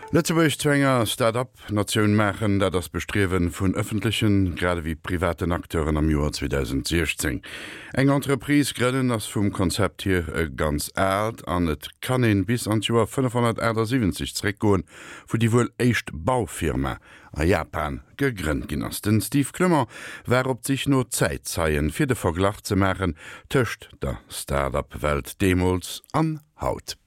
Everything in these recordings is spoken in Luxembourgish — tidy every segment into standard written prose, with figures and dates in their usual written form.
Lëtzebuerg zu enger Start-up-Natioun maachen, dat ass d'Bestriewe vun ëffentlechen, grad ewéi privaten Acteuren am Joer 2016. Eng Entreprise grënnen ass vum Konzept hier e ganz aalt an et kann een bis an d'Joer 578 zeréckgoen, wou déi wuel éischt Baufirma a Japan gegrënnt ginn ass. Den Steve Clement war op d'Sich no Zäitzeien, fir de Verglach ze maachen tëscht der Start-up-Welt deemools an haut.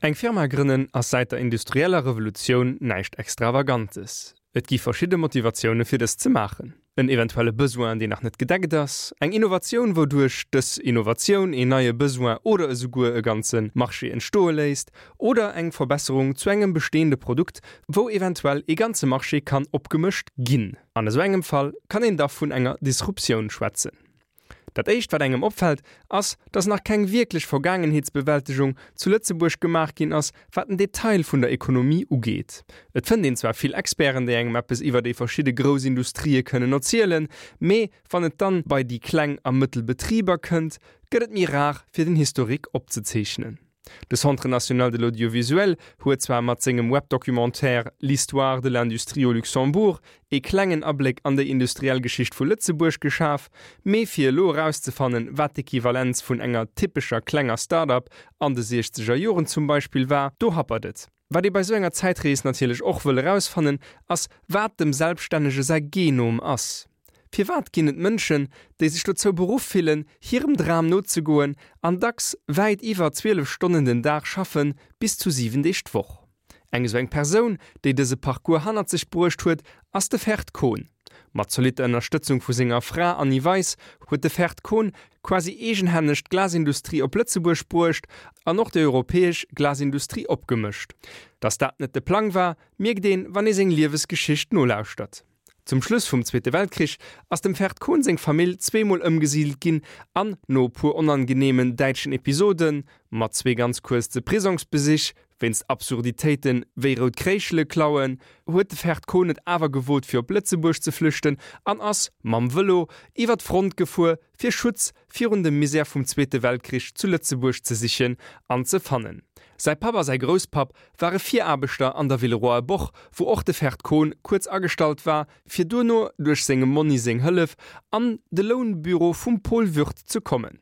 Eng Firma grënnen ass säit der industrieller Revolutioun näischt Extravagantes. Et gi verschidde Motivatioune fir dëst ze maachen. En eventuelle Besoin deen nach net gedeckt ass, eng Innovatioun wouduerch dës Innovatioun een neie Besoin oder esouguer e ganze Marché entstoe léisst, oder eng Verbesserung zu engem bestehende Produkt wou eventuell ee ganze Marché kann opgemëscht ginn. An esou engem Fall kann een da vun enger Disruptioun schwätzen. Dat éischt wat engem opfält, ass, dass nach keng wierklech Vergaangenheetsbewältegung zu Lëtzebuerg gemaach ginn ass, wat den Detail vun der Ekonomie ugeet. Et fënnt een zwar vill Experten, déi engem eppes iwwer déi verschidde grouss Industrië kënnen erzielen, mee wann et dann bei déi kleng a mëttel Betriber kënnt, gëtt et méi rar fir den Historique opzezeechnen. De Centre national de l'audiovisuel huet zwar mat sengem Webdocumentaire L'histoire de l'industrie au Luxembourg ee klengen Abléck an déi industriell Geschicht vu Lëtzebuerg geschaf, mee fir elo erauszefannen, wat d'Equivalenz vun enger typescher klenger Start-up an de siechzeger Joren zum Beispill war, do happert et. Wat ee bei sou enger Zäitrees natierlech och wëll erausfannen, ass wat dem Selbststännege säi Genom ass. Firwat ginn et Mënschen, déi sech dozou beruff fillen, hirem Dram nozegoen an dacks wäit iwwer 12 Stonnen den Dag schaffen, bis zu 7 Deeg d'Woch? Eng esou eng Persoun, déi dëse Parcours hannert sech bruecht huet, ass de Ferd Kohn. Mat zolitter Ënnerstëtzung vu senger Fra Anni Weis huet de Ferd Kohn quasi eegenhänneg d'Glasindustrie op Lëtzebuerg bruecht an och déi europäesch Glasindustrie opgemëscht. Datt dat net de Plang war, mierkt een, wann ee seng Liewesgeschicht nolauschtert. Zum Schluss vum Zweete Weltkrich ass dem Ferd Kohn seng Famill zweemol ëmgesidelt ginn an no e puer onangeneemen däitschen Episoden, mat zwee ganz kuerze Prisongsbesich wéinst Absurditéiten wéi rout Kréischele klauen, huet de Ferd Kohn et awer gewot fir op Lëtzebuerg ze flüchten an ass, mam Vëlo, iwwer d'Front gefuer fir Schutz virun dem Misär vum Zweete Weltkrich zu Lëtzebuerg ze sichen an ze fannen. Säi Papp a säi Grousspapp ware Viraarbechter an der Villeroyer Boch, wou och de Ferd Kohn kuerz agestallt war, fir duerno duerch sengem Monni seng Hëllef an de Lounbüro vum Paul Würth ze kommen.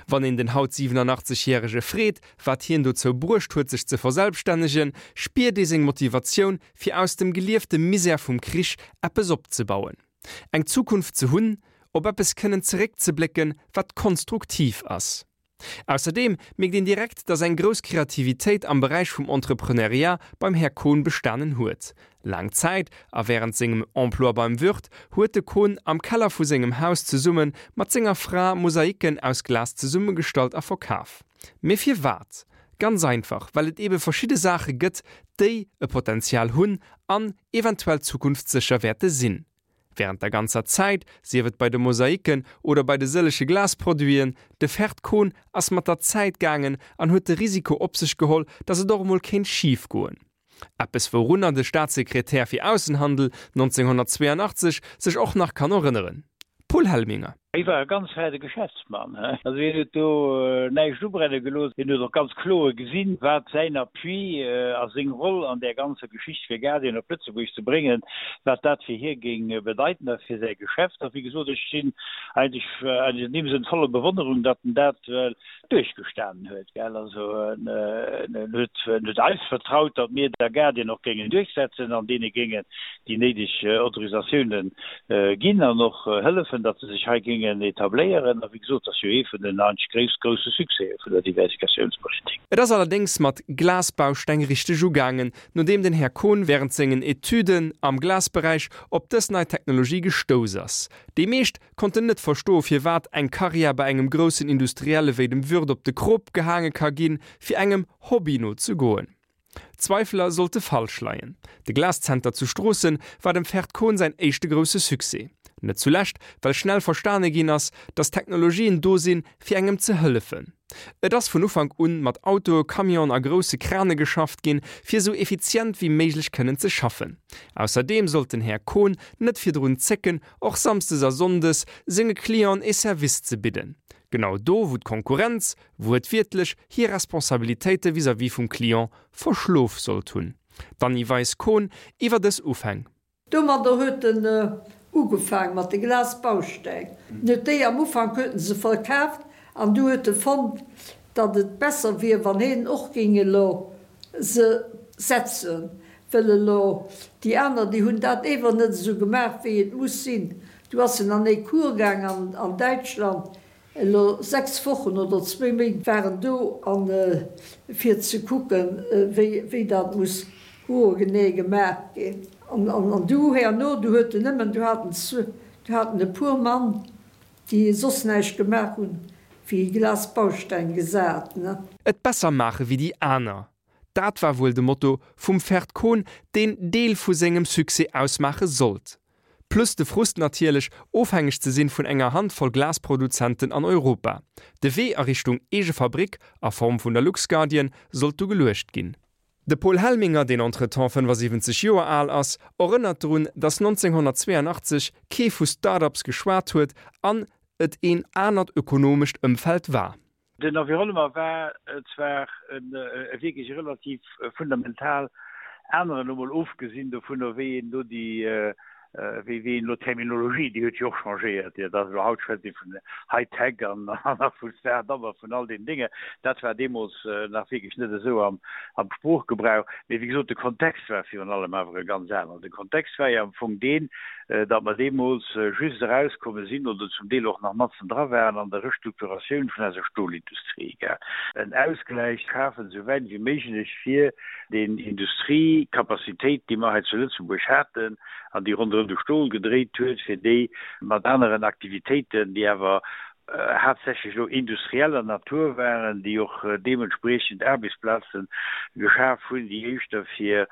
Wann een den haut 87 järege freet, wat hien dozou bruecht huet sech ze verselbstännegen, spiert ee seng Motivatioun fir aus dem geliefte Misär vum Krich eppes opzebauen. Eng Zukunft ze hunn, op eppes kënnen zeréckzeblécken, wat konstruktiv ass. Ausserdeem mierkt een direkt, dass eng grouss Kreativitéit am Beräich vum Entrepreneuriat beim Här Kohn bestanen huet. Laang Zäit, a wärend sengem Emploi beim Würth, huet de Kohn am Keller vu sengem Haus zesumme mat senger Fra Mosaiken aus Glas zesummegestallt a verkaf. Mee firwat? Ganz einfach, well et ebe verschidde Saache gëtt, déi e Potenzial hunn an eventuell zukunftssécher wäerte sinn. Wärend der ganzer Zäit, sief et bei de Mosaiken oder bei de sëllege Glasproduiten, de Ferd Kohn ass mat der Zäit gaangen an huet de Risiko op sech geholl, datt et och emol kéint schif goen. Eppes wourunner de Staatssekretär fir Aussenhandel 1982 sech och nach kann erënneren. Paul Helminger. Hie war e ganz fäine Geschäftsmann. Also hien huet do näischt ubrenne gelooss. Hien huet och ganz kloer gesinn, wat säin Appui a seng Roll an där ganzer Geschicht fir Guardian op Lëtzebuerg ze bréngen, wat dat fir hie géing bedeiten a fir säi Geschäft. A wéi gesot, ech sinn eigentlech an deem Sënn voller Bewonnerung, datt en dat duerchgestanen huet, gell. Also en huet, en huet eis vertraut, datt mir der Guardian och géingen duerchsetzen an deene géingen déi néideg Autorisatiounen ginn an och hëllefen, datt se sech hei géingen etabléieren. A wéi gesot, dat ass jo ee vun den eigentlech grouss, grousse Succèse vun der Diversifikatiounspolitik. Et ass allerdéngs mat Glasbausteng richteg ugaangen, nodeem den Här Kohn während sengen Etüden am Glasberäich op dës nei Technologie gestouss ass. Déi meescht konnten net verstoe firwat eng Karriär bei engem groussen Industrielle wéi dem Würth op de Krop gehaange ka ginn, fir engem Hobby no ze goen. D'Zweifeler sollte falsch leien. De Glaszenter zu Stroossen war dem Ferd Kohn säin éischte grousse Succès. Net zulescht, well schnell verstane ginn ass, datt Technologien do sinn, fir engem ze hëllefen. Et ass vun Ufank un mat Autoe, Camionen a grousse Krane geschafft ginn, fir esou effizient wéi méiglech kënnen ze schaffen. Ausserdeem sollt den Här Kohn net virdrun zécken, och samsdes a sonndes senge Clienten ee Service ze bidden. Genau do, wou d'Konkurrenz, wuertwiertlech, hir Responsabilitéite vis-à-vis vum Client verschlof sollt hunn. D'Anny Weis-Kohn iwwer dës Ufäng. Domadder huet en ugefaang mat de Glasbausteng. En huet déi am Ufank huet en se verkaaft an du huet e fonnt, datt et besser wier, wann heen och géing elo se setzen, wëll elo déi aner, déi hunn dat ewer net esou gemaach, wéi et muss sinn. Du ass en an ee Cours gaang an Däitschland, Elo 6 Wochen oder zwéi Méint war en do an fir ze kucken wéi dat muss hoergenee gemaach ginn. An du herno, du huet en nëmmen, du hat en du hat en e puer Mann déi soss näischt gemaach hunn wéi Glasbausteng gesat, ne. Et besser maache wéi déi aner, dat war wuel de Motto vum Ferd Kohn, deen Deel vu sengem Succès ausmaache sollt. Plus de Frust natierlech, ofhängeg ze sinn vun enger Handvoll Glasproduzenten an Europa. De Wee a Richtung eege Fabrick a Form vun der LuxGuardian sollt du geluecht ginn. De Paul Helminger, deen entretemps 75 Joer al ass, erënnert drun, datt 1982 kee vu Start-ups geschwat huet an et een anert ökonomescht Ëmfeld war. Den Environnement war zwar e wierklech relativ fundamental aneren, elo mol ofgesinn dovunner, wéi een elo déi, wéi een elo d'Terminologie, déi huet jo och changéiert, jo, dat elo haut schwätzt ee vun High-Tech an a vu Start-up a vun all deenen Dénge, dat war deemools nach wierklech net esou am Sproochgebrauch. Mee wéi gesot, de Kontext war virun allem awer e ganz aneren. De Kontext war jo am Fong deen, datt mer deemools just erauskomme sinn oder zum Deel och nach matzen dra waren an der Restrukturatioun vun eiser Stolindustrie, en Ausgläich schafen, esou wäit wéi méiglech fir deen Industriekapazitéit, déi mer hei zu Lëtzebuerg haten an déi ronderëm de Stol gedréit huet, fir déi mat aneren Aktivitéiten, déi awer haaptsächlech elo industrieller Natur waren, déi och deementspriechend Aarbechtsplaze geschaf hunn, déi éischter fir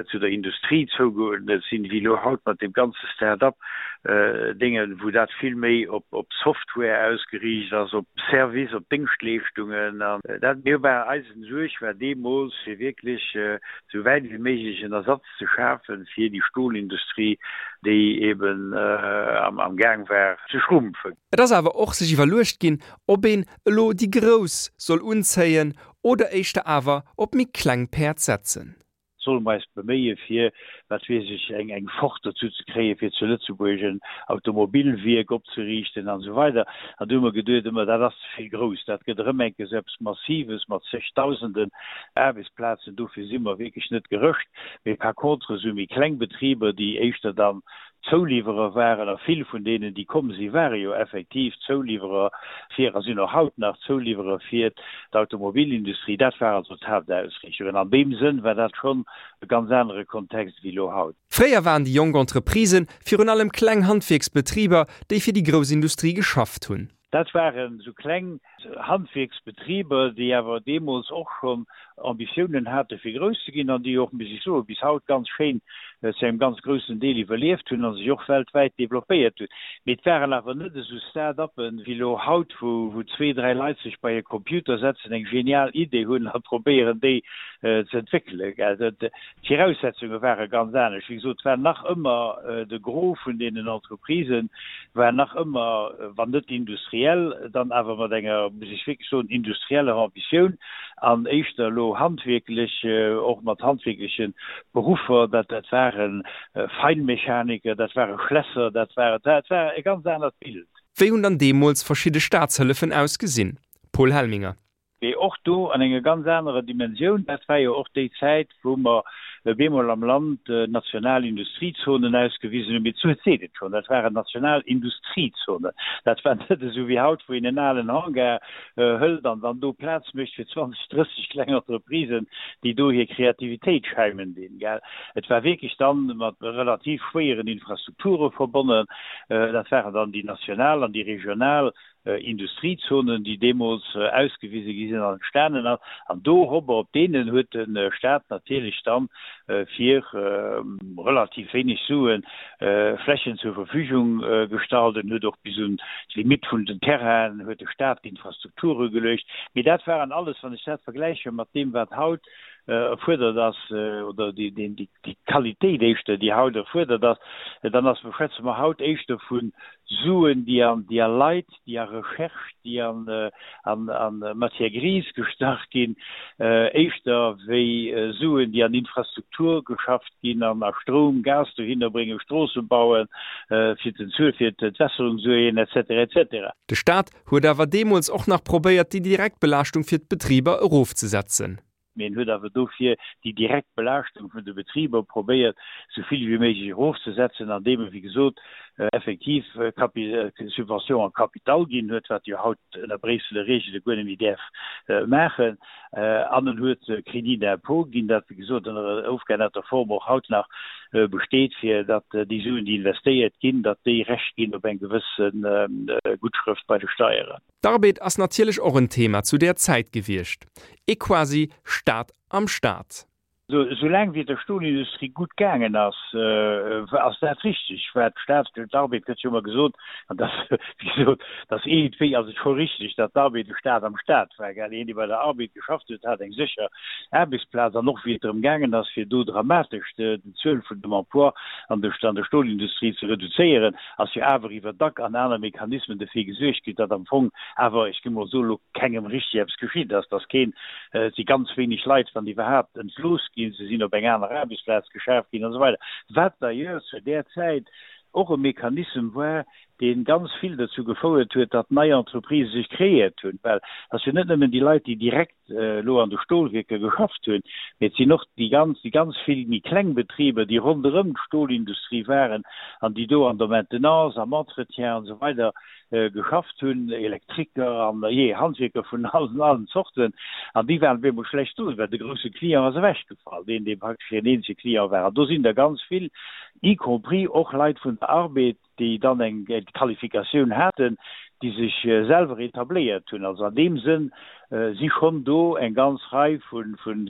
zu der Industrie zougeuerdnet sinn, wéi elo haut mat deem ganze Start-up Déngen, wou dat vill méi op Software ausgeriicht ass, op Service, op Déngschtleeschtungen. An dat mir war eisen Suerg war deemools, fir wierklech esou wäit wéi méiglech en Ersatz ze schafe fir déi Stolindustrie, déi eben am Gaang war ze schrumpfen. Et ass awer och sech iwwerluecht ginn, ob een elo déi Grouss soll unzéien oder éischter awer op méi kleng Päerd setzen. Solle mer eis beméie fir, wat weess ech, eng eng Ford dozou ze kréien, fir zu Lëtzebuerg en Automobilwierk opzeriichten an esou weider. An du hu mer geduet ëmmer, dat ass ze vill grouss, dat gëtt erëm eng Kéier esou eppes Massives mat zegdausenden Aarbechtsplazen, dofir si mer wierklech net gerëscht. Mee par contre esou méi kleng Betriber, déi éischter dann Zouliwwerer waren, a vill vun deenen, déi komm sinn, ware jo effektiv Zouliwwerer fir, a sinn och haut nach Zouliwwerer fir d'Automobilindustrie. Dat war also d'Haaptausrichtung. An an deem Sënn war dat schonn e ganz anere Kontext wéi elo haut. Fréier waren déi jonk Entreprisë virun allem kleng Handwierksbetriber, déi fir déi grouss Industrie geschafft hunn. Dat waren esou kleng Handwierksbetriber, déi awer deemools och schonn Ambitiounen hate fir grouss ze ginn an déi och, muss ech soen, bis haut ganz schéin zu engem ganz groussen Deel iwwerlieft hunn a sech och weltwäit developpéiert hunn. Mee et waren awer net esou Start-uppen wéi elo haut, wou zwee, dräi Leit sech bei e Computer setzen, eng genial Idee hunn a probéieren déi ze entwéckelen. D'Viraussetzunge ware ganz anescht. Wéi gesot, et war nach ëmmer de Gros vun deenen Entreprisen war nach ëmmer, wann net industriell, dann awer mat enger, muss ech wierklech soen, industrieller Ambitioun an éischter elo handwierklech, och mat handwierkleche Beruffer. Dat dat ware Feinmechaniker, dat ware Schlässer, dat war dat war e ganz anert Bild. Wéi hunn dann deemools verschidde Staatshëllefen ausgesinn? Paul Helminger. Mee och do an enger ganz anerer Dimensioun. Dat war jo och déi Zäit, wou mer bemol am Land national Industriezonen ausgewisen hunn. Mee d'Zuel seet et schonn, dat waren national Industriezonen. Dat war net esou wéi haut, wou een en alen Hangar hëlt an dann do Plaz mécht fir 20, 30 kleng Entreprisen, déi do hir Kreativitéit schäimen dinn, gell. Et war wierklech dann mat relativ schwéieren Infrastrukture verbonnen. Dat waren dann déi national an déi regional Industriezonen, déi deemools ausgewise gi sinn an entstanen ass. An dorobber, op deenen huet de Stat natierlech dann fir relativ wéineg Sue Flächen zur Verfügung gestallt. En huet och bis un d'Limitt vun den Terrainen huet de Stat d'Infrastrukture geluecht. Mee dat waren alles, wann ech dat vergläiche mat deem, wat haut. erfuerdert ass, oder déi, déi Qualitéit éischter, déi haut erfuerdert ass, dann ass, schwätze mer haut éischter vu Suen, déi an, déi a Leit, déi a Recherche, déi an, an, an Matière grise gestach ginn, éischter wéi Suen, déi an Infrastruktur geschafft ginn, an a Stroum, Gas dohinner bréngen, Stroosse bauen, fir den Zuel, fir d'Entwässerung suergen, et cetera, et cetera. De Staat huet awer deemools och nach probéiert, déi direkt Belaaschtung fir d'Betriber erofzesetzen. Mee en huet awer dofir déi direkt Belaaschtung vun de Betriber probéiert, esou vill wéi méiglech erofzesetzen, andeem e, wéi gesot, effektiv Subvention en capital ginn huet, wat e jo haut ënner Bréisseler Reegele guer net méi däerf maachen. An en huet Crédit d'impôt ginn, dat, wéi gesot, ënner ofgeännerter Form och haut nach besteet, fir datt déi Suen, déi investéiert ginn, datt déi Recht ginn op eng gewësse Guttschrëft bei de Steieren. D'Arbed ass natierlech och en Thema zu där Zäit gewiescht, ee quasi Staat am Staat. Esou laang wéi et der Stolindustrie gutt gaangen ass, ass dat richteg, wat d'Staat, d'Arbed gëtt jo ëmmer gesot, an dat, wéi gesot, dat ass iergendwéi ass et scho richteg, datt d'Arbed de Staat am Staat war, gell. Een, dee bei der Arbed geschafft huet, hat eng sécher Aarbechtsplaz. An och wéi et drëm gaangen ass, fir do dramatesch d'Zuel vun dem Emploi an der Stolindustrie ze reduzéieren, ass jo awer iwwer Dack an aner Mechanismen derfir gesuergt ginn, datt am Fong awer, ech géing mol soen, elo kengem richteg eppes geschitt ass, datt keen, et si ganz wéineg Leit, wann iwwerhaapt, entlooss ginn, se sinn op eng aner Aarbechtsplaz geschaf ginn an esou weider, wat d'ailleurs zu där Zäit och e Mechanissem war, dee ganz vill dozou gefouert huet, datt nei Entreprisë sech kreéiert hunn, well et ass jo net nëmmen déi Leit, déi direkt elo an de Stolwierker geschafft hunn, mee et sinn och déi ganz, déi ganz vill méi kleng Betriber, déi ronderëm d'Stolindustrie waren an déi do an der Maintenance, am Entretien an esou weider geschafft hunn, Elektriker an, jee, Handwierker vun allen, allen Zorten. An déi waren op eemol schlecht do, well de grousse Client ass ewechgefall, deen, dee praktesch hiren eenzege Client war. An do sinn der ganz vill, y compris och Leit vun der Arbed, déi dann eng Qualifikatioun haten, déi sech selwer etabléiert hunn. Also an deem Sënn si schonn do eng ganz Rei vu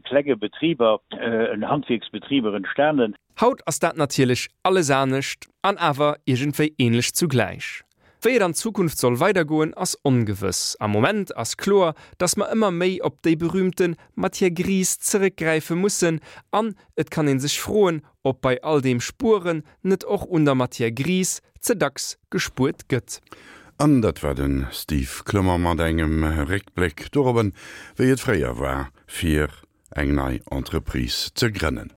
klenge Betriber, Handwierksbetriber entstanen. Haut ass dat natierlech alles anescht an awer iergendwéi änlech zugläich. Wéi et an Zukunft soll weidergoen, ass ongewëss. Am Moment ass kloer, dass mer ëmmer méi op déi berühmte Matière grise zeréckgräife mussen an et kann ee sech froen, ob bei all deem Spueren net och un der Matière grise ze dacks gespuert gëtt. An dat war de Steve Clement mat engem Réckbléck dorobben, wéi et fréier war, fir eng nei Entreprise ze grënnen.